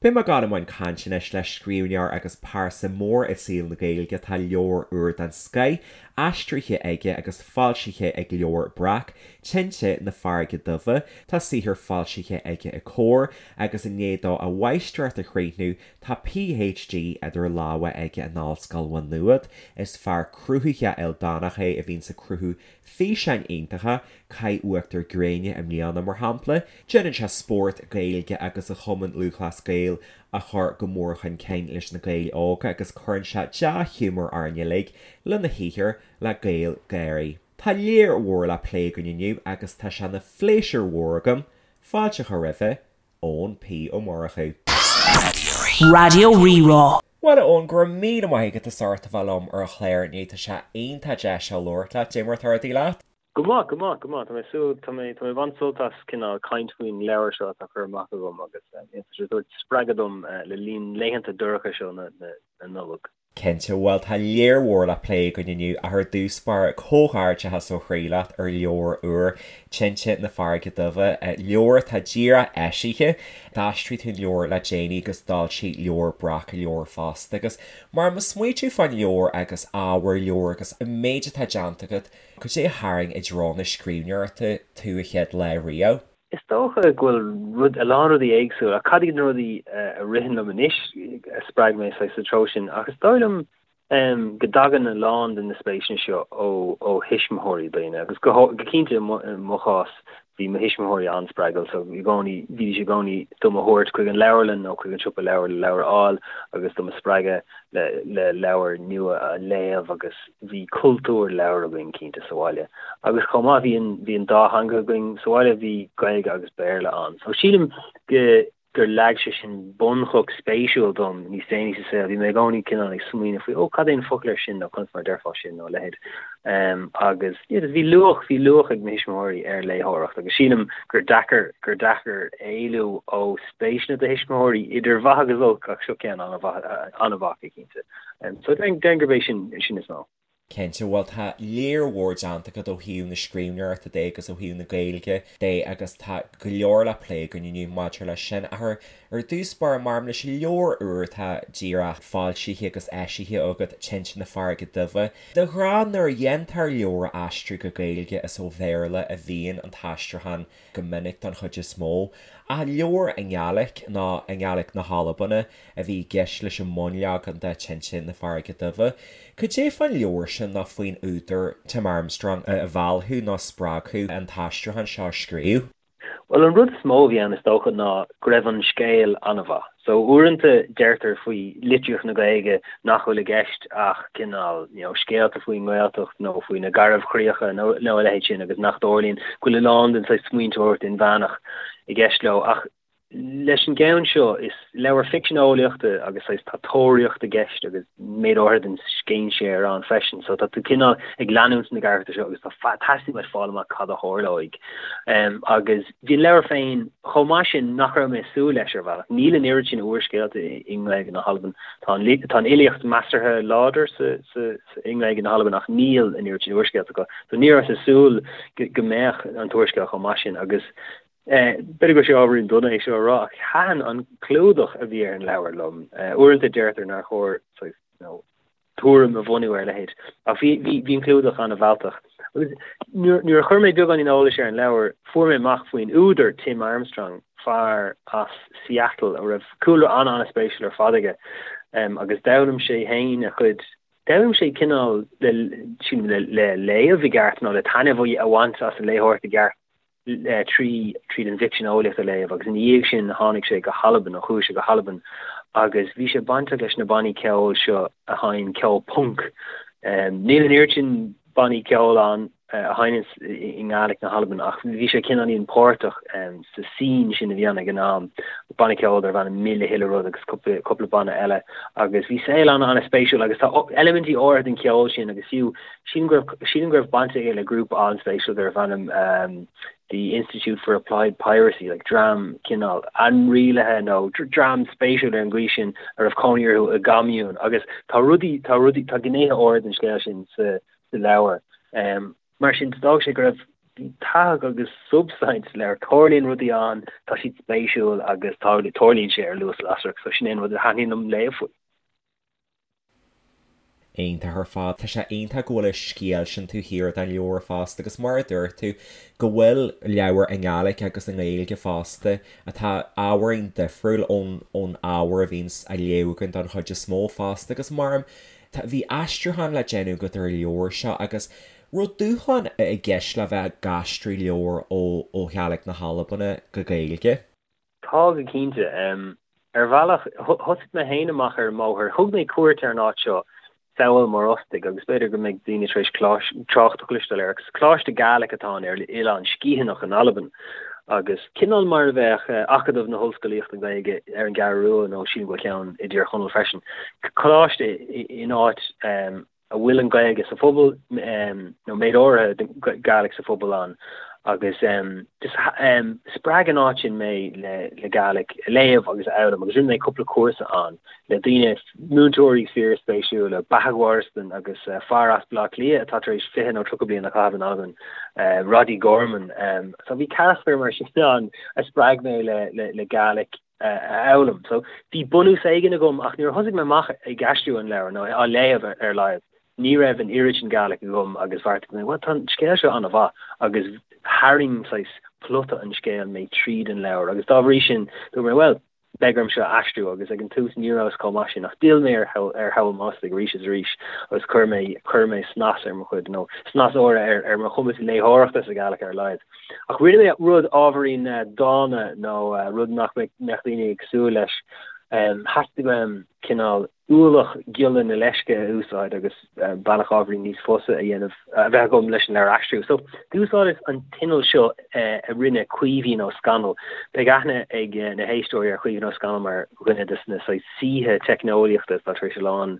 Beidh mé ag dul i mbun cainte anois le scríbhneoir agus pearsa mór i saol na Gaeilge. Tá leabhar úr den scoith aistrithe aige agus foilsithe ag Leabhar Breac, Tinte na Farraige Duibhe. Tá saothar foilsithe aige i Comhar agus i ndiaidh dó a mháistreacht a chríochnú tá PhD idir lámha aige in Ollscoil Mhá Nuad. Is fear cruthaitheach ildánach é a bhíonns ag cruthú físeáin iontacha, Caith Uachtar Gréine i mbliana, mar shampla. Déanann sé spórt Gaeilge agus a Chumann Lúthchleas Gael a chur go mór chun cinn leis na Gaeil óga agus cuireann sé dea-ghiúmar orainn uilig lena shaothar le GaelGÁIRÍ. Tá lear mhór le plé againn inniu agus tá sé ina phléisiúr mhór agam fáilte a chur roimhe, Eoin P. Ó Murchú. Raidió Rí-Rá. Bhuel, a Eoin, go raibh míle maith agat as ucht a bheith liom ar an chlár inniu. Tá sé iontach deas labhairt leat. Dé mar atá rudaí leat? Go maith, go maith, go maith. Tá mé ag súil, tá mé, tá mé ag baint sult as cineál caint faoin leabhar seo atá curtha amach agam agus tá sé ag tabhairt spreagadh dom le linn laethanta dorcha seo na Nollag. Cinnte, bhuel tá lear mhór le plé againn inniu ach ar dtús báire, comhghairdeachas ó chroí leat ar leabhar úr, Tinte na Farraige Duibhe, leabhar atá díreach eisithe. D'aistrigh tú an leabhar le déanaí agus d'fhoilsigh Leabhar Breac an leabhar fosta agus mar mo smaoitiú fán leabhar agus ábhar an leabhair agus an méid atá déanta agat, cad é a tharraing i dtreo na scríbhneoireachta tú a chéad lá riamh? Is dócha go bhfuil rud, a lán rudaí éagsúil, ach cad iad na rudaí a ritheann liom anois a spreag mé saghas sa treo sin, ach is dóigh liom go dtagann a lán de na spéiseanna seo ó ó thuismitheoirí daoine, agus go go cinnte i mo i mo chás bhí mo thuismitheoirí an-spreagúil so i gcónaí bhídís i gcónaí do mo thabhairt chuig an leabharlann nó chuig an siopa leabhar le leabhar a fháil agus do mo spreagadh le le leabhair nua a léamh agus bhí cultúr leabhar againn cinnte sa bhaile agus chomh maith bhí an bhí an dá theanga againn sa bhaile, bhí Gaeilge agus Béarla ann. So sílim go gur leag sé sin bunchloch spéisiúil dom níos déanaí sa saol. Bhí mé i gcónaí cineál ag smaoineamh faoi, ó cad é an focal ar sin nó conas mar a déarfá sin nó a leithéid. Um, agus yeah, bhí luach bhí luach ag mo thuismitheoirí ar léitheoireacht agus sílim gur deacair gur deacair éalú ó spéiseanna do thuismitheoirí idir mhaith agus olc ach seo ceann an-mhaith an-mhaith cinnte. So déarfainn gurb é sin sin is mó. Cinnte, bhuel tá lear mhór déanta agat ó thaobh na scríbhneoireachta de agus ó thaobh na Gaeilge de agus tá go leor le plé againn inniu maidir leis sin. Ach ar ar dtús báire, maidir leis an leabhar úr atá díreach foilsithe agus eisithe agat, Tinte na Farraige Duibhe. De ghnáth nuair a dhéantar leabhar a aistriú go Gaeilge is ó Bhéarla a bhíonn an t-aistriúchán go minic don chuid is mó. Ach leabhar i nGàidhlig, nó i nGàidhlig na hAlban, a bhí i gceist leis an mbunleagan de Tinte na Farraige Duibhe. Cad é fán leabhar sin nó faoin údar Tim Armstrong a mheall thú nó a spreag thú an t-aistriúchán seo a scríobh? Bhuel, an rud is mó a bhí ann is dócha ná go raibh an scéal an-mhaith. So uaireanta deirtear faoi litríocht na Gaeilge nach bhfuil i gceist ach cineál, you know, scéalta faoin nGaeltacht nó faoi na Garbhchríocha nó nó a leithéid sin agus nach dtarlaíonn, go bhfuil a lán den saghas smaointeoireacht inmheánach i gceist leo. Ach leis an gceann seo, is leabhar ficsean eolaíochta agus saghas tá tóraíocht i gceist agus méid áirithe den scéinséir ann freisin. So tá tú cineál ag leanúint na gcarachtar seo agus tá teastaíonn uait fáil amach cad a tharlóidh. Agus bhí an leabhar féin chomh maith sin nach raibh mé ag súil leis ar bhealach. Níl an oiread sin úrscéalta i nGaeilge na hAlban. Tá an tá an fhilíocht measartha láidir sa sa i nGaeilge na hAlban ach níl an oiread sin úrscéalta acu. So ní rabhas ag súil go mbeadh an t-úrscéal chomh maith sin agus B'fhéidir go bhfuil sé ábhairín dona é seo a rá, ach thaitin an clúdach a bhí ar an leabhar liom. Uaireanta deirtear nár chóir saghas, you know, tuairim a bhunú ar a leithéid, ach bhí, bhí, bhí an clúdach an-mhealltach. Agus nuair, nuair a chuir mé beagáinín eolais ar an leabhar, fuair mé amach faoin údar, Tim Armstrong, fear as Seattle a raibh cúlra an-an-spéisiúil ar fad aige, agus d'fhoghlaim sé féin a chuid, d'fhoghlaim sé cineál le, sílim, le, le léamh i gceart nó le taitneamh a bhaint as an léitheoireacht i gceart. trí tríd an bhficsean eolaíochta a léamh agus ina dhiaidh sin tháinig sé go hAlbain, nó chuaigh sé go hAlbain agus bhí sé bainteach leis na bannaí ceoil seo a sheinn ceol punc. Níl an oiread sin bannaí ceoil ann a sheinneann i nGàidhlig na hAlban ach bhí sé cineáilín páirteach sa scene sin a bhí ann ag an am, banna ceoil darbh ainm Mille Chuile Rud agus cúpla cúpla banna eile agus bhí saol an-an-spéisiúil agus tá eilimintí áirithe den cheol sin agus fiú Sílim go raibh, sílim go raibh baint aige le grúpa an-spéisiúil darbh ainm The Institute for Applied Piracy, like dream cineál ainrialaithe nó dream spéisiúil ar an gcaoi sin a raibh cónaí orthu i gcommune agus tá rudaí, tá rudaí, tá gnéithe áirithe den scéal sin sa, sa leabhar. Mar sin, d'fhág sé go raibh. Bhí tathag agus substaint sa leabhar, tarlaíonn rudaí ann, tá siad spéisiúil agus tarlaíonn sé ar luas lasrach, so sin é an rud a thaitníonn liom léamh faoi. Iontach ar fad. Tá sé iontach go bhfuil an scéal sin taobh thiar den leabhar fosta agus mar a dúirt tú, go bhfuil leabhar i nGaeilge agus i nGaeilge fosta atá ábhairín difriúil ón ón ábhar a bhíonns á léamh againn don chuid is mó fosta agus mar tá bhí aistriúchán le déanamh agat ar an leabhar seo agus raibh dúshlán i gceist le bheith ag aistriú leabhar ó ó Ghàidhlig na hAlban go Gaeilge? Tá go cinnte. Ar bhealach, thosaigh mé féin amach ar an mbóthar. Thug mé cuairt ar an áit seo, Sabhal Mòr Ostaig, agus b'fhéidir go mbeidh daoine tar éis trácht a chloisteáil air. Agus coláiste Gaelic atá ann ar Oileán Sgitheanach in Albain. Agus cineál mar a bheadh Acadamh na hOllscolaíochta Gaeilge ar an gCeathrú Rua, nó sílim go bhfuil ceann i dTír Chonaill freisin. Coláiste in áit a bhfuil an Ghaeilge sa phobal, nó méid áirithe den Gàidhlig sa phobal ann, agus just spreag an áit sin mé le Gàidhlig a léamh agus a fhoghlaim, agus rinne mé cúpla cúrsa ann le daoine, múinteoirí fíorspéisiúla, Beathag Wariston agus fear as Baile Átha Cliath atá tar éis 20 nó 30 bliain a chaitheamh in Albain, Roddy Gorman. So bhí carachtair mar sin ann a spreag mé le Gàidhlig. a fhoghlaim. So, bhí bunús éigin agam ach nuair a thosaigh mé amach ag aistriú an leabhair, nó á léamh ar a laghad, ní raibh an oiread sin Gàidhlig agam agus bheartaigh mé, bhuel, tá an scéal seo an-mhaith agus tharraing saghas plota an scéil mé tríd an leabhar agus dá bhrí sin dúirt mé, bhuel, beidh orm seo a aistriú agus ag an tús ní rabhas chomh maith sin ach d'fhill mé ar Shabhal Mòr Ostaig arís is arís agus chuir mé chuir mé snas ar mo chuid, nó snas úr ar ar mo chumas léitheoireachta sa Ghàidhlig ar a laghad. Ach rinne mé rud ábhairín dána nó rud nach mbeadh daoine ag súil leis. Theastaigh uaim cineál ualach ghiolla na leisce a úsáid agus bealach ábhairín níos fusa a dhéanamh, a bheith agam leis an leabhar a aistriú. So, d'úsáideas an t-inneall seo a rinne Caoimhín Ó Scanaill. Beidh aithne ag na héisteoirí ar Chaoimhín Ó Scanaill mar dhuine de na saghas saoithe teicneolaíochta atá tar éis a lán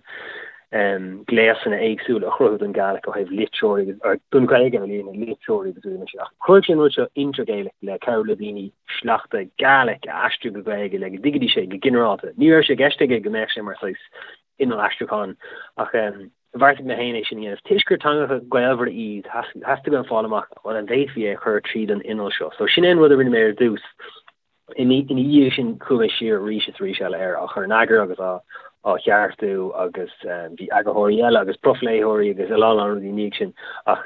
gléasanna éagsúla a chruthú don Gàidhlig ó thaobh litreoirí agus, don Ghaeilge ar líne, litreoirí agus rudaí mar sin. Ach chruthaigh sé an rud seo Intergaelic le cabhrú le daoine sleachta Gàidhlig a aistriú go Gaeilge le go dtuigfidís é go ginearálta. Ní raibh sé i gceist aige go mbeadh sé mar saghas inneall aistriúcháin ach bheartaigh mé féin é sin a dhéanamh. Toisc gur teangacha gaolmhara iad, theastaigh uaim fáil amach an bhféadfaí é a chur tríd an inneall seo. So sin é an rud a rinne mé ar dtús. Ina dhiaidh sin chuaigh mé siar arís is arís eile air, á chur in eagar agus á cheartú agus bhí eagarthóirí eile agus profléitheoirí agus a lán lán rudaí ina dhiaidh sin ach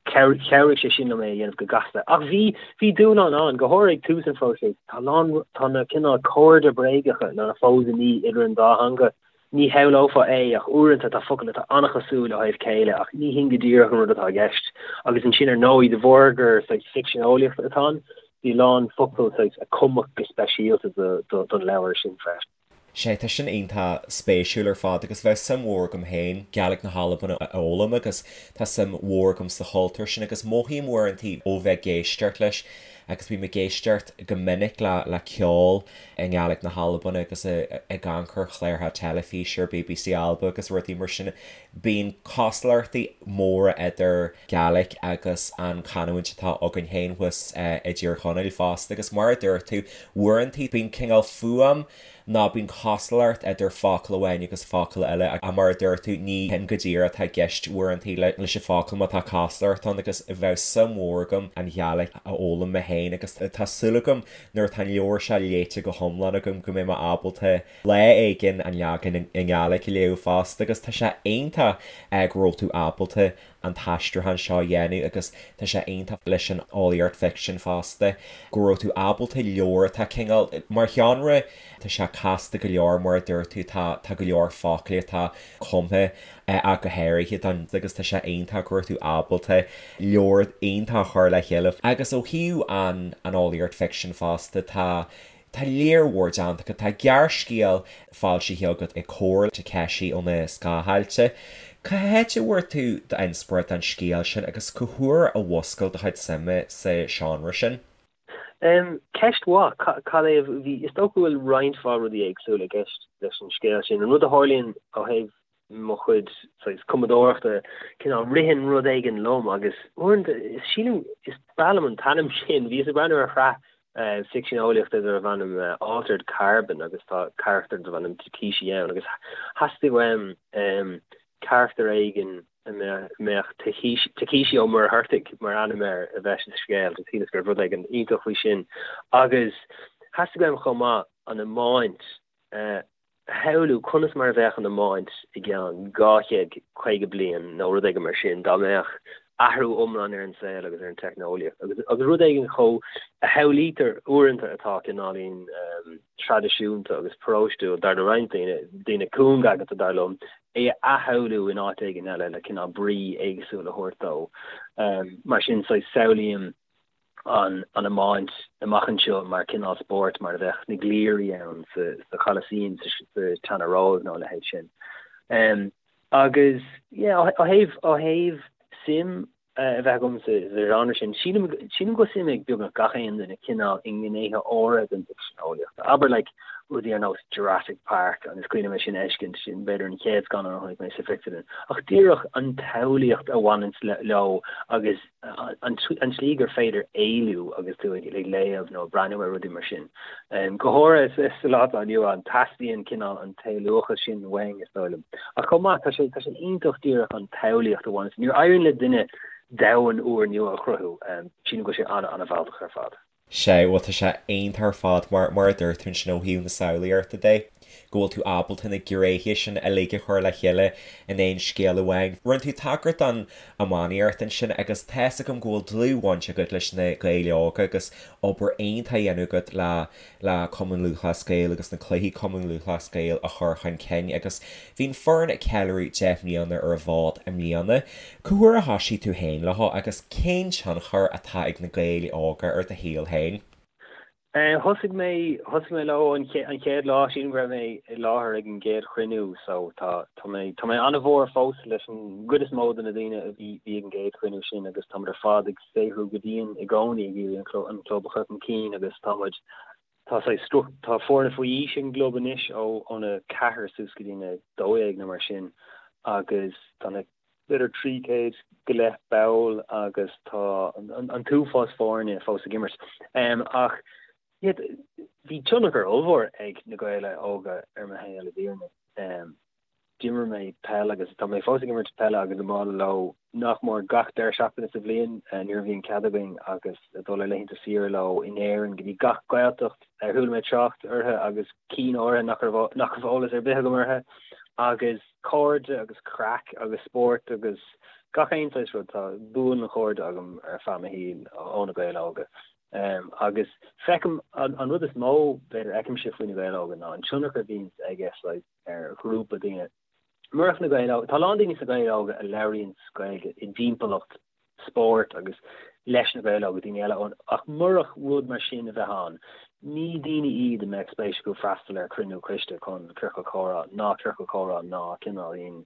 chabhraigh sé sin liom é a dhéanamh go gasta. Ach bhí, bhí dúshlán ann, go háirithe ag tús an phróisis. Tá a lán, tá na cineál cairde bréagacha, nó na fósaimí idir an dá theanga. Ní shamhlófá é ach uaireanta tá focail atá an-chosúil ó thaobh céille ach ní hin go díreach an rud atá i gceist. Agus ansin ar ndóigh, de bharr gur saghas ficsean eolaíochta atá ann, bhí a lán focal saghas a cumadh go speisialta don leabhar sin freisin. Sea, tá sin iontach spéisiúil ar fad agus bheadh suim mhór agam féin Gàidhlig na hAlban a fhoghlaim agus tá suim mhór agam sa chultúr sin agus mothaím uaireanta ó bheith ag éisteacht leis agus bím ag éisteacht go minic le le ceol i nGàidhlig na hAlban agus ag amharc ar chláracha teilifíse ar BBC Alba agus rudaí mar sin. Bíonn cosúlachtaí móra idir Gàidhlig agus an chanúint atá againn féin thuas i dTír Chonaill fosta agus mar a dúirt tú, uaireanta bíonn cineál fuaim nó bíonn cosúlacht idir focal amháin agus focal eile ach mar a dúirt tú, ní hin go díreach atá i gceist uaireanta leis an focal má tá cosúlacht ann agus bheadh suim mhór agam an Ghàidhlig a fhoghlaim mé féin agus tá súil agam nuair atá an leabhar seo léite go hiomlán agam go mbeidh mé ábalta lá éigin an leagan i nGàidhlig a léamh fosta agus tá sé iontach go raibh tú ábalta an t-aistriúchán seo a dhéanamh agus tá sé iontach leis an eolaíocht ficsin fosta go raibh tú ábalta leabhar atá cineál mar sheánra tá sé casta go leor mar a dúirt tú tá tá go leor foclaí atá cumtha ach go háirithe don agus tá sé iontach go raibh tú ábalta leabhar iontach a chur le chéile. Agus ó thaobh an an eolaíocht ficsin fosta tá tá lear mhór déanta agat, tá gearrscéal foilsithe agat i Comhar Takeshi ó na Scáthailte. Cá háit a bhfuair tú d'inspioráid don scéal sin agus cá huair a mhúscail do chuid suime sa seánra sin? Ceist mhaith. Cad é a bhí, is dócha go bhfuil roinnt mhaith rudaí éagsúla i gceist leis an scéal sin. An rud a tharlaíonn ó thaobh mo chuid saghas cumadóireachta, cineál ritheann rud éigin liom agus uaireanta, is sílim, is breá liom an t-ainm sin, bhíos ag breathnú ar shraith ficsean eolaíochta darbh ainm Altered Carbon agus tá carachtar darbh ainm Takeshi ann agus theastaigh uaim carachtar éigin. a mbeadh Takeshi Ó Muircheartaigh mar ainm air a bheith sa scéal. Just shíleas go raibh rud éigin iontach faoi sin. Agus theastaigh uaim chomh maith an iomáint a shamhlú, conas mar a bheadh an iomáint i gceann 250 bliain nó rud éigin mar sin, dá mbeadh athrú iomlán ar an saol agus ar an teicneolaíocht agus agus rud éigin chomh a shamhlaítear uaireanta atá cineáilín traidisiúnta agus paróistiúil dar le roinnt daoine, daoine cúngaigeanta dar liom, é a athshamhlú in áit éigin eile le cineál brí éagsúil a thabhairt dó. Mar sin, saghas samhlaím an an iomáint amach anseo mar cineál spóirt mar a bheadh na gliairí ann sa sa Cholasaem sa sa tSeana-Róimh nó a leithéid sin. Agus yeah, ó thaobh ó thaobh suim a bheith agam sa genre sin, sílim sílim go bhfuil suim ag beagnach gach aon duine cineál i ngnéithe áirithe den fhicsean eolaíochta. Abair like rudaí ar nós Jurassic Park agus is cuimhin liom é sin a fheiscint, sin b'fhéidir an chéad scannán a chonaic mé sa phictiúrlann. Ach díreach an tsamhlaíocht a bhaineanns leo agus an tslí gur féidir éalú agus tú ag léamh nó ag breathnú ar rudaí mar sin. Go háirithe sa lá atá inniu ann, teastaíonn cineál an t-éalúchas sin uainn, is dóigh liom. Ach chomh maith, tá sé tá sé iontach díreach an tsamhlaíocht a bhaineanns. Nuair a éiríonn le duine domhan úrnua a chruthú, sílim go bhfuil sé an-an-mhealltach ar fad. Sea, bhuel tá sé iontach ar fad mar, mar a dúirt tú ansin ó thaobh na samhlaíochta de, go bhfuil tú ábalta na gnéithe sin uilig a chur le chéile in aon scéal amháin. Rinne tú tagairt don iománaíocht ansin agus tá's agam go bhfuil dlúthbhaint agat leis na Gaeil Óga agus obair iontach á dhéanamh agat le le Cumann Lúthchleas Gael agus na cluichí Cumann Lúthchleas Gael a chur chun cinn agus bhí an foireann ag ceiliúradh 10 mbliana ar an bhfód i mbliana. Cá huair a thoisigh tú féin leo agus cén tionchar atá ag na Gaeil Óga ar do shaol féin? Thosaigh mé, thosaigh mé leo an chéad lá, sílim go raibh mé i láthair ag an gcéad chruinniú so tá, tá mé, tá mé an-mhór fós leis an gcuid is mó de na daoine a bhí, bhí ag an gcéad chruinniú sin agus táimid ar fad ag saothrú go dian i gcónaí ag iarraidh an club a chur chun cinn agus tá muid, tá saghas struc, tá foirne faoi aois ag an gclub anois ó ón 4 suas go dtí an 12 nó mar sin agus tá na, b'fhéidir 300 go leith ball agus tá an t-uafás foirne fós ag imirt. Ach yeah, bhí tionchar ollmhór ag na Gaeil Óga ar mo shaol i bhfírinne. D'imir mé peil agus tá mé fós ag imirt peile agus iomána leo nach mór gach deireadh seachtaine sa bhliain nuair a bhíonn cead againn agus ag dul ar laethanta saoire leo in Éirinn go dtí gach Gaeltacht ar chuala mé trácht orthu agus cinn áirithe nach raibh nach raibh eolas ar bith agam orthu agus cairde agus craic agus spórt agus gach aon saghas rud. Tá buanchairde agam ar feadh mo shaoil ó na Gaeil Óga. Agus feicim, an rud is mó b'fhéidir a fheicimse faoi na Gaeil Óga ná an tionchar a bhíonns aige saghas ar ghrúpa daoine. Murach na Gaeil Óga, tá a lán daoine sna Gaeil Óga a labhraíonns Gaeilge i dtimpeallacht spóirt agus leis na Gaeil Óga, daoine eile ann, ach murach rud mar sin a bheith ann, ní daoine iad a mbeadh spéis acu freastal ar chruinniú coiste chun ciorcal comhrá ná ciorcal comhrá ná cineáilín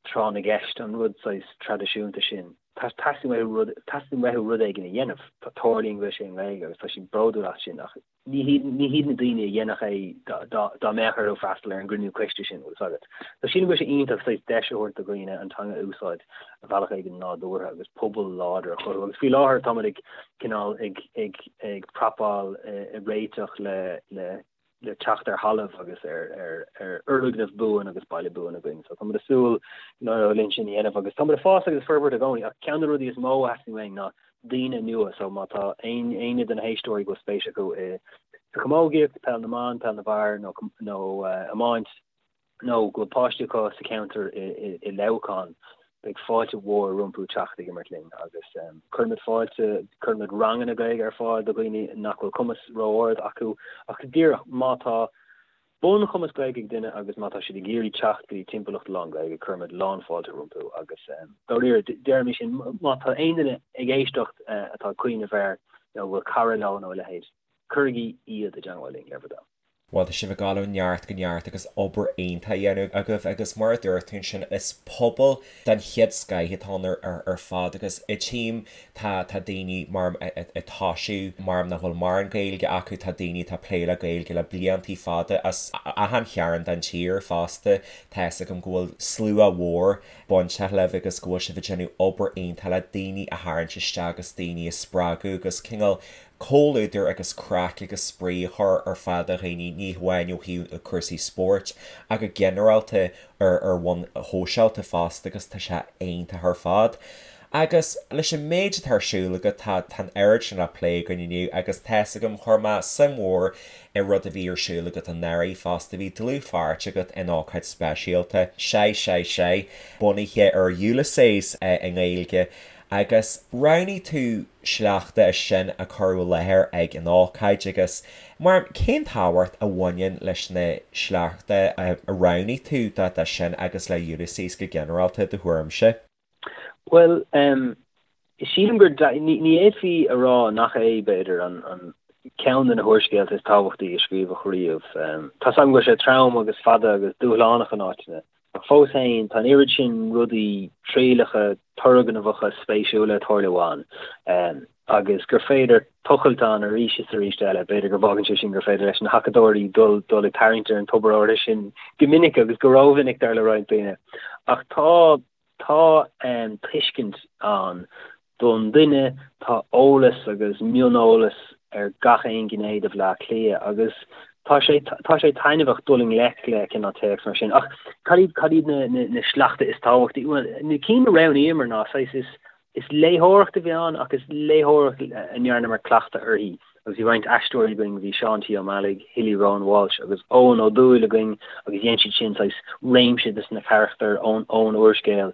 tráth na gceist, an rud saghas traidisiúnta sin. Teastaíonn uathu rud, teastaíonn uathu rud éigin a dhéanamh. Tarlaíonn go bhfuil sé i nGaeilge agus tá siad bródúil as sin ach ní hiad, ní hiad na daoine a dhéanfadh é dá, dá mbeadh orthu freastal ar an gcruinniú coiste sin, bhfuil fhios agat. So sílim go bhfuil sé iontach saghas deis a thabhairt do dhaoine an teanga a úsáid ar bhealach éigin nádúrtha agus pobal láidir a chruthú. Agus faoi láthair táimid ag cineál ag, ag, ag prapáil, ag réiteach le, le, le teacht ar thalamh agus ar fhoirgneamh buan agus baile buan againn. So táimid ag súil linn sin a dhéanamh agus táimid ag fás agus ag forbairt i gcónaí ach ceann de na rudaí is mó a theastaíonn uainn ná daoine nua so má tá aon éinne de na héisteoirí go bhfuil spéis acu i sa chamógaíocht, peil na mban, peil na bhfear nó nó iomáint, nó go bhfuil páistí acu sa cheantar i Leamhcán, beidh fáilte mhór rompu teacht ag imirt linn agus cuirimid fáilte, cuirimid ranganna Gaeilge ar fáil do dhaoine nach bhfuil cumas ró-ard acu ach díreach má tá bunchumas Gaeilge ag duine agus má tá siad ag iarraidh teacht go dtí timpeallacht lán-Ghaeilge, cuirimid lánfháilte rompu agus dáiríre, deirimid sin, má tá aon duine ag éisteacht atá ag cuimhneamh air nó a bhfuil cara leo nó a leithéid, cuirigí iad i dteangmháil linn, le bhur dtoil. Bhuel, tá sibh ag dul ó neart go neart agus obair iontach á dhéanamh agaibh agus mar a dúirt tú ansin, is pobal den chéad scoith atá ann ar fad agus i tím tá tá daoine mar ag tosú mar nach bhfuil mórán Gaeilge acu, tá daoine atá ag plé le Gaeilge le bliantaí fada as achan chearn den tír fosta. Tá fhios agam go bhfuil slua mhór bainteach libh agus go bhfuil sibh ag déanamh obair iontach le daoine a tharraingt isteach agus daoine a spreagadh agus cineál. comhluadar agus craic agus spraoi a chur ar fáil do dhaoine, ní hamháin ó thaobh cúrsaí spóirt ach go ginearálta ar ar bhonn shóisialta fosta agus tá sé iontach ar fad. Agus leis an méid atá ar siúl agat, tá tá an oiread sin le plé againn inniu agus tá's agam, chuir mé suim mhór i rud a bhí ar siúl agat anuraidh fosta, bhí dlúthpháirt agat in ócáid speisialta, Sé Sé Sé, bunaithe ar Ulysses i nGaeilge agus roghnaigh tú sleachta as sin a cuireadh i láthair ag an ócáid agus mar cén tábhacht a bhaineann leis na sleachta a roghnaigh tú do sin agus le Ulysses go ginearálta, do thuairimse? Bhuel, sílim gur, ní fhéadfaí a rá nach é, b'fhéidir, an ceann de na húrscéalta is tábhachtaí a scríobhadh riamh. Tá's agam go bhfuil sé trom agus fada agus dúshlánach in áiteanna, ach fós féin, tá an oiread sin rudaí trialacha, turgnamhacha, spéisiúla ag tarlú ann, agus gur féidir tochailt ann arís is arís eile. B'fhéidir go bhfágann sé sin gur féidir leis na hacadóirí dul dul ag tarraingt ar an tobar áirithe sin go minic agus go rómhinic, dar le roinnt daoine. Ach tá tá tuiscint ann don duine, tá eolas agus mioneolas ar gach aon ghné de Bhaile Átha Cliath agus tá sé tá sé taitneamhach dul i ngleic le cineál téacs mar sin. Ach cad iad cad iad na na na sleachta is tábhachtaí? Bhuel, na cinn a roghnaíomar ná saghas is Is léitheoireacht a bhí ann ach is léitheoireacht a ndearnamar cleachtadh uirthi agus bhí roinnt aisteoirí againn, bhí Seán T. Ó Meallaigh, Hilly Rowan Walsh agus Eoghan Ó Dúill againn agus dhein siad sin saghas réimse de na carachtair ón ón úrscéal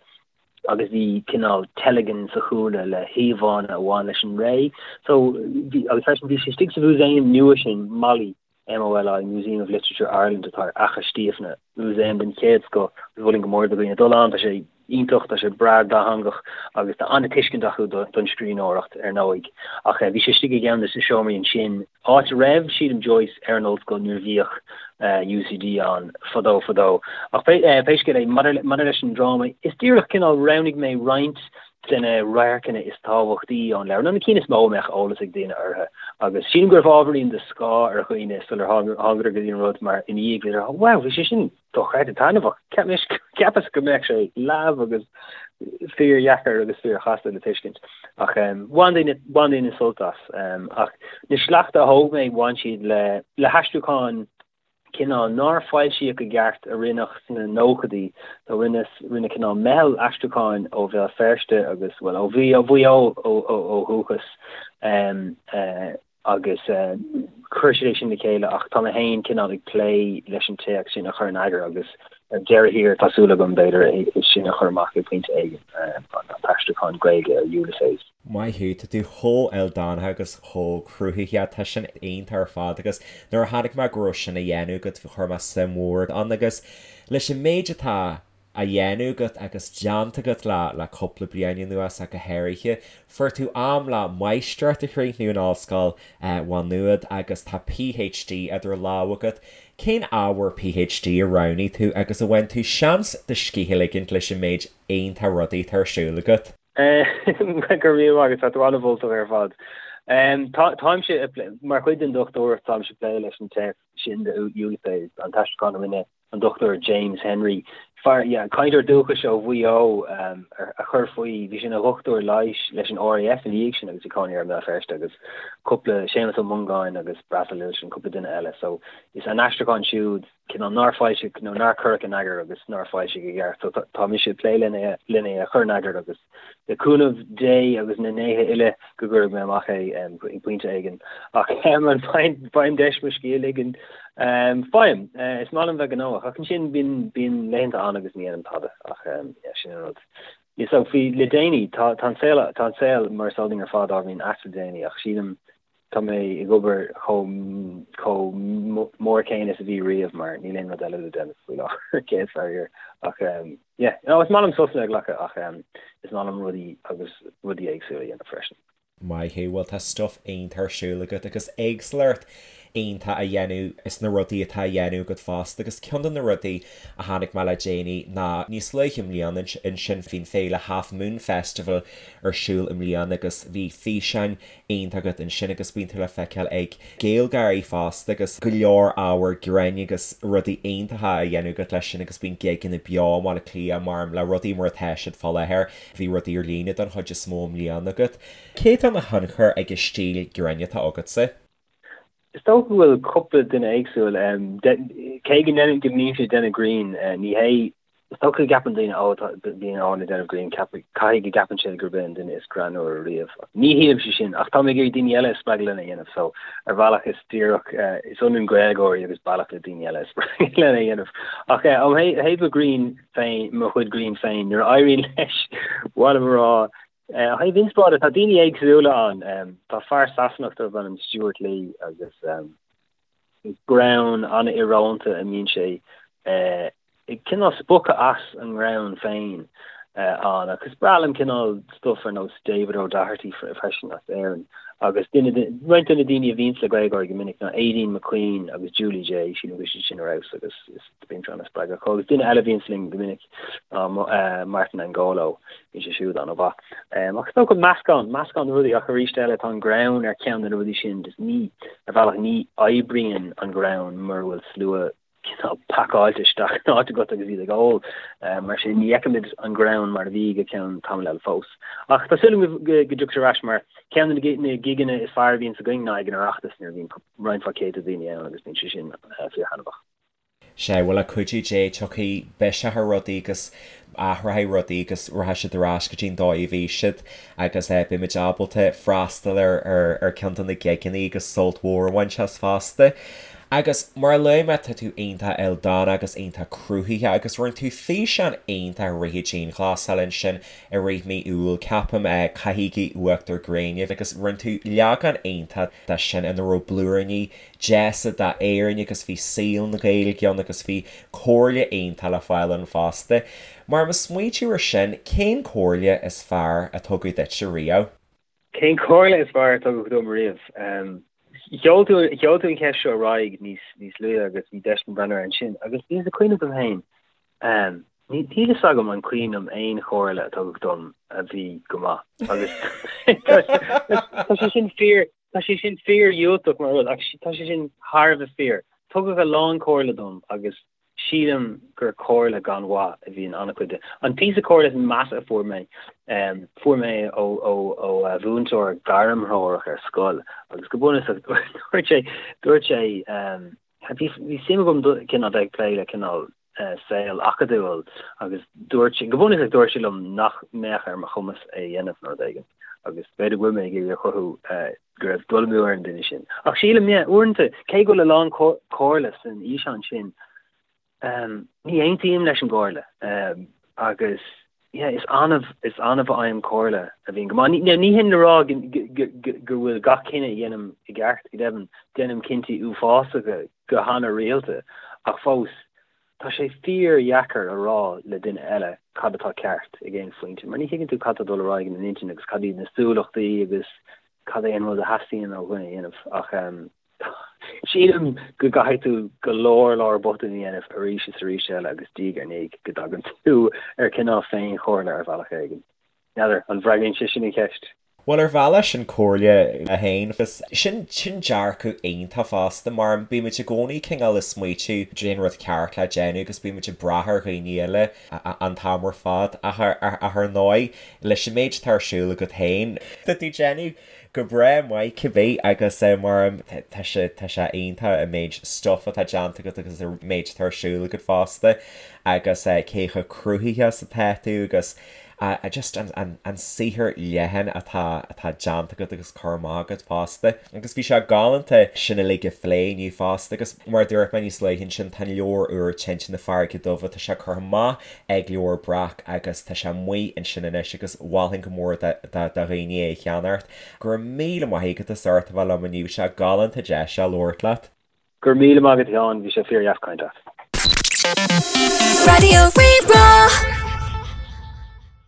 agus bhí cineál teilgean sa chúlra le híomhánna a bhain leis an ré. So bhí agus freisin bhí sé istigh sa mhúsaem nua sin, Moli, MOLI, Museum of Literature Ireland atá ar Fhaiche Stiabhna, músaem den chéad scoth agus mholfainn go mór do dhaoine dul ann, tá sé iontach, tá sé breá dátheangach agus tá an-tuiscint acu don scríbhneoireacht ar ndóigh. Ach bhí sé istigh i gceann de na seomraí ansin, áit a raibh, sílim, Joyce ar an ollscoil nuair a bhíodh UCD ann fadó fadó. Ach pé scéal é, maidir leis an dráma, is díreach cineál roghnaigh mé roinnt de na radharcanna is tábhachtaí ón leabhar, nó na cinn is mó a mbeadh eolas ag daoine orthu, agus sílim go raibh ábhairín de scáth ar dhaoine sular thángadar go dtí an rud, mar ina dhiaidh bhíodar, wow, bhí sé sin dochreidte taitneamhach, cheapas go mbeadh sé leamh agus fíordheacair agus fíorchasta le tuiscint. Ach bhain daoine, bhain daoine sult as. Ach na sleachta a thóg mé, bhain siad le, le haistriúcháin cineál nár foilsíodh i gceart a rinneadh sna nóchaidí. So rinne, rinne cineál meitheal aistriúcháin ó Bhéal Feirste agus, bhuel, ó Mhaigh, Mhaigh Eo ó dhúchas agus chuir siad é sin le chéile ach tá mé féin cineál ag plé leis an téacs sin a chur in eagar agus ar deireadh thiar tá súil agam b'fhéidir é sin a chur amach ag pointe éigin, an t-aistriúchán Gaeilge ar Ulysses. Maith thú, tá tú chomh ildánach agus chomh cruthaitheach, tá sin iontach ar fad agus nuair a chonaic mé go raibh sin á dhéanamh agat chuir mé suim mhór ann agus leis an méid atá á dhéanamh agat agus déanta agat le le cúpla bliain anuas ach go háirithe, fuair tú am le máistreacht a chríochnú in Ollscoil Mhá Nuad agus tá PhD idir lámha agat. Cén ábhar PhD a roghnaigh tú agus ar bhain tú seans do scíth a ligint leis an méid iontach rudaí atá ar siúl agat? Go raibh míle maith agat, tá tú an-mholtach ar fad. Táimse, mar chuid den dochtúireacht, táimse ag plé leis an téacs sin de Ulysses, an t-aistriúchán a rinne an Dr James Henry, fear, yeah, cainteoir dúchais ó Mhaigh Eo a chuir faoi, bhí sé ina dhochtúir leighis leis an RAF ina dhiaidh sin agus bhí cónaí air i mBéal Feirste agus cúpla, Séamus Ó Mongáin agus Breasal Uilsean, cúpla duine eile. So is an aistriúchán siúd, cineál nár foilsíodh nó nár cuireadh in eagar agus nár foilsíodh i gceart. So tá mise ag plé lena é a chur in eagar agus le cúnamh Dé agus na ndéithe uile go gcuirfidh mé amach é ag pointe éigin. Ach an bhfaighim deis mo scíth a ligean? Faighim. Is maith liom bheith gnóthach ach ansin bíonn bíonn laethanta ann agus ní dhéanaim tada ach yeah sin an rud. Yeah so faoi le déanaí tá tá an saol tá an saol mar is eol dúinn ar fad ábhairín ait le déanaí ach sílim Tá mé ag obair chomh chomh mór céanna is a bhí riamh mar níl aon rud eile le déanamh faoi láthair, céad faraor. Ach yeah, no, is maith liom sosanna a ghlacadh ach is maith liom rudaí agus rudaí éagsúla a dhéanamh freisin. Maith thú, bhuel tá stuff iontach ar siúl agat agus éagsúlacht. iontach a dhéanamh is na rudaí atá á dhéanamh agat fosta agus ceann de na rudaí a chonaic mé le déanaí ná níos luaithe i mbliana ansin bhí an féile Half Moon Festival ar siúl i mbliana agus bhí físeáin iontach agat ansin agus bíonn tú le feiceáil ag GaelGáirí fosta agus go leor ábhar grinn agus rudaí iontacha á dhéanamh agat leis sin agus bíonn gigeanna beo i mBaile Átha Cliath mar le rudaí mar atá siad fá láthair bhí rudaí ar líne don chuid is mó i mbliana agat. Cé atá ina thionchar ag an stíl grinn atá agatsa? Is dócha go bhfuil cúpla duine éagsúil. Cé go ndéanaim, go mbímse ag déanamh grinn, ní hé, is dócha go gceapann daoine, ó, tá, bíonn Eoin ag déanamh grinn, caithfidh go gceapann siad gurb é an duine is greannmhaire riamh. Ní shílimse sin, ach tá mé ag iarraidh daoine eile a spreagadh lena dhéanamh, so ar bhealach is díreach, is ionann GaelGáirí agus bealach le daoine eile a spreagadh lena dhéanamh. Ach ó thaobh mo ghrinn féin, mo chuid grinn féin, nuair a éiríonn leis, mhaith liom a rá, Ó thaobh inspioráide, tá daoine éagsúla ann. Tá fear Sasanach darb ainm Stewart Lee agus greann an-íorónta a mbíonn sé ag cineál spochadh as an ngreann féin ann. Agus is breá liom cineál stuff ar nós David O'Doherty freisin as Éirinn. Agus duine de, roinnt de na daoine a bhíonns le GaelGáirí go minic ná Aideen McQueen agus Julie Jay, sílim go bhfuil siad sin ar fheabhas agus is bíonn siad an-spreagúil. Agus duine eile a bhíonns linn go minic ná Martin Angolo. Bhí sé siúd an-mhaith. Ach is dócha meascán, meascán de rudaí ach arís eile tá an greann ar cheann de na rudaí sin just ní, ar bhealach ní oibríonn an greann mura bhfuil slua cineál pacáilte isteach in áit agat agus iad ag ól. Mar sin ní fheicimid an greann mar a bhí go ceann tamaill eile fós. Ach tá súil agam go dtiocfaidh sé ar ais mar ceann de na gigeanna is fearr a bhíonns againn ná ag an Oireachtas nuair a bhíonn roinnt mhaith céadta daoine ann agus bíonn sé sin fíorthaitneamhach. Sea, bhuel le cuidiú Dé tiocfaidh biseach ar rudaí agus athróidh rudaí agus rachaidh siad ar ais go dtí an dóigh a bhí siad agus beimid ábalta freastal ar ar ceann de na gigeanna agus sult mhór a bhaint as fosta. Agus mar a luaigh mé tá tú iontach ildánach agus iontach cruthaitheach agus rinne tú físeán iontach i rith an dianghlasáil ansin i rith mí Iúil ceapaim, Caithigí Uachtar Gréine agus rinne tú leagán iontach de sin ina raibh blúiríní deasa d'Éirinn agus bhí saol na Gaeilge ann agus bhí comhairle iontach le fáil ann fosta. Mar ag smaointiú ar sin, cén comhairle is fearr a tugadh duitse riamh? Cén comhairle is fearr a tugadh dom riamh? Sheol tú sheol tú an cheist seo ar aghaidh níos níos luaithe agus bhí deis agam breathnú air ansin agus bhíos ag cuimhneamh dom féin, níl fhios agam an cuimhin liom aon chomhairle a tugadh dom a bhí go maith agus tá sé sin fíor Tá sé sin fíor-dhiúltach mar rud, ach tá sé sin thar a bheith fíor. Tugadh a lán comhairle dom agus sílim gur comhairle gan mhaith a bhí in an-chuid de. An píosa comhairle is measa a fuair mé, fuair mé é ó mhúinteoir gairmthreorach ar scoil agus go bunúsach dúirt sé, dúirt sé, Bhí suim agam cineál bheith ag plé le cineál saol acadúil agus dúirt sé, go bunúsach dúirt sé liom nach mbeadh ar mo chumas é a dhéanamh nó rud éigin agus b'fhéidir go bhfuil mé ag iarraidh a chruthú go raibh dul amú ar an duine sin. Ach sílim, yeah, uaireanta, cé go bhfuil a lán comhairle san fhíseán sin, Ní aontaím leis an gcomhairle agus yeah is annamh is annamh a fhaighim comhairle a bhíonn go maith. Ní hin le rá go bhfuil gach cinneadh a dhéanaim i gceart, go deimhin déanaim cinntí uafásacha go hana-rialta ach fós tá sé fíor-dheacair a rá le duine eile cad atá ceart ag aon phointe mar ní thuigeann tú cad tá ag dul ar aghaidh ina n-intinn agus cad iad na súlachtaí agus cad é an rud a theastaíonn ó dhuine a dhéanamh ach Sílim go gcaithfidh tú go leor leor botún a dhéanamh arís is arís eile agus diaidh ar ndiaidh go dtagann tú ar cineál féinchomhairle ar bhealach éigin. N'fheadar, an bhfreagraíonn sé sin an cheist? Bhuel, ar bhealach sin comhairle é féin agus sin, sin dearcadh iontach fosta mar bímid i gcónaí cineál ag smaoitiú cén rud ceart le déanamh agus bímid ag brath ar dhaoine eile an t-am ar fad ach ar ndóigh leis an méid atá ar siúl agat féin, tá tú ag déanamh Go breá maith cibé agus mar tá sé tá sé iontach an méid stuff atá déanta agat agus an méid atá ar siúl agat fosta agus cé chomh cruthaitheach is atá tú agus just an an an saothar leathan atá atá déanta agat agus curtha amach agat fosta. Agus bhí sé galánta sin uilig a phlé inniu fosta agus mar a dúirt mé níos luaithe ansin tá an leabhar úr Tinte na Farraige Duibhe tá sé curtha amach ag Leabhar Breac agus tá sé amuigh ansin anois agus mholfainn go mór do dhaoine é a cheannacht. Go raibh míle maith agat as ucht a bheith liom inniu, bhí sé galánta deis a labhairt leat. Go raibh míle maith agat a Sheáin, bhí sé fíor dheas caint leat. Raidió Rí-Rá.